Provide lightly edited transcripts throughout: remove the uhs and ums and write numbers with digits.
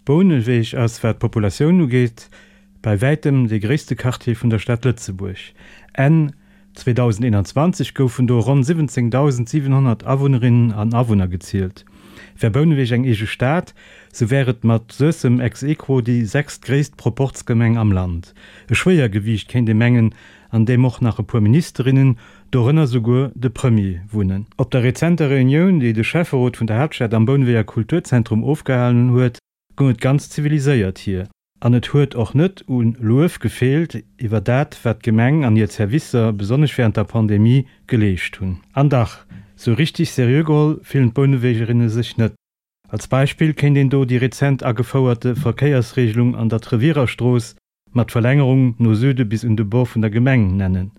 Bouneweg ass, wat d'Populatioun ugeet, bei wäitem dee gréisste Quartier vun der Stad Lëtzebuerg. Enn 2021 goufen do ronn 17.700 Awunnerinnen an Awunner gezielt. Wär Bouneweg eng eege Stad, sou wär et mat Suessem ex aequo déi sechstgréisst Proporzgemeng am Land. E Schwéiergewiicht, kéint ee mengen, an deem och nach e puer Ministerinnen, dorënner souguer de Premier, wunnen. Op der rezenter Reunioun, déi de Schäfferot vun der Haaptstad am Bouneweger Kulturzentrum ofgehalen huet, goung et ganz ziviliséiert hier. An et huet och net u Luef gefeelt iwwer dat, wat d'Gemeng an hir Zerwisser, besonnesch wärend der Pandemie, geleescht hunn. An dach, sou richtig seriö geholl fillen d'Bounewegerinne sech net. Als Beispill kéint een do déi rezent agefouerte Verkéiersregelung an der Treviererstrooss mat Verlängerung no Süde bis un de Bord vun der Gemeng nennen.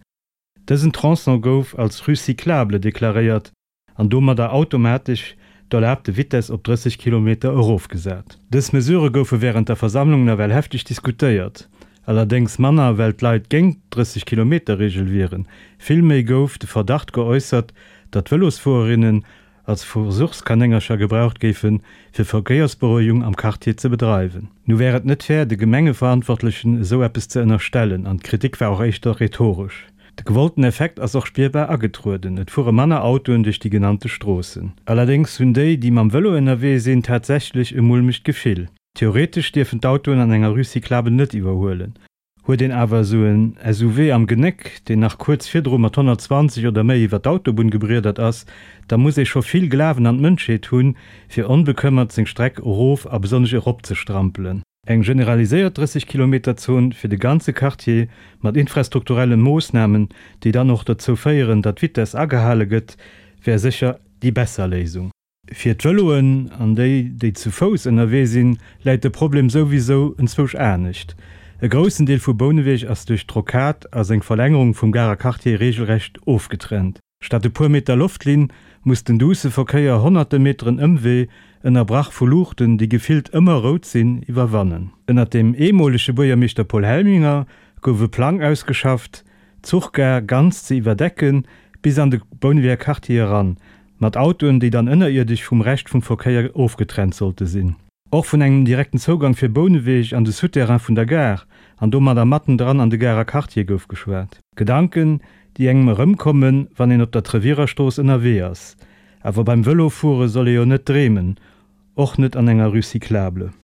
Dësen Tronçon gouf als Rue cyclable deklaréiert an domadder automatesch d'erlaabte Vitess op 30 Kilometer erofgesat. Dës Mesure goufe wärend der Versammlung nawell hefteg diskutéiert, allerdéngs manner well d'Leit géint d'Drësseg Kilometer-Reegel wieren, villméi gouf de Verdacht geäussert, datt Vëlosfuererinnen als Versuchskanéngercher gebraucht géifen, fir Verkéiersberouegung am Quartier ze bedreiwen. Nu wär et net fair, de Gemengeverantwortlechen esou eppes ze ënnerstellen, an d'Kritik war och éischter rhetoresch. De gewollten Effekt ass och spierbar agetrueden, et fuere manner Autoen duerch déi genannte Stroossen. Allerdéngs hunn déi, déi mam Vëlo ënnerwee sinn, tatsächlech e mulmegt Gefill. Theoretesch dierfen d'Autoen an enger Rue cyclable net iwwerhuelen. Huet een awer esou en SUV am Genéck, deen nach kuerz virdru mat 120 oder méi iwwer d'Autobunn gebriedert ass, da muss ee scho vill Glawen an d'Mënschheet hunn, fir onbekëmmert seng Streck erof a besonnesch erop ze strampelen. Eng generaliséiert 30 Kilometer Zon fir de ganze Quartier mat infrastrukturelle Moossnamen, déi dann och dozou féieren, datt d'Vitess agehale gëtt, wär sécher déi besser Léisung. Fir d'Vëloen an déi, déi zu Fouss ënnerwee sinn, läit de Problem souwisou enzwousch anescht. E groussen Deel vu Bouneweg ass duerch d'Rocade a seng Verlängerung vum Garer Quartier reegelrecht ofgetrennt. Statt e puer Meter Loftlinn muss den duusse Verkéier honnerte Meteren Ëmwee, ënnerbrach vu Luuchten, déi gefillt ëmmer rout sinn, iwwerwannen. Ënnert dem eemolege Buergermeeschter Paul Helminger gouf e Plang ausgeschafft, d'Zuchgare ganz ze iwwerdecken, bis an de Bouneweger Quartier eran, Mat Autoen, déi dann ënnerierdesch vum Rescht vum Verkéier ofgetrennt sollte sinn. Och vun engem direkten Zougang fir Bouneweg an de Souterrain vun der Gare an domadder matten dran an de Garer Quartier gouf geschwat. Gedanken, déi engem erëmkommen, wann een op der Treviererstrooss ënnerwee ass. Awer beim Vëlofuere soll ee jo net dreemen, och net an enger Rue cyclable.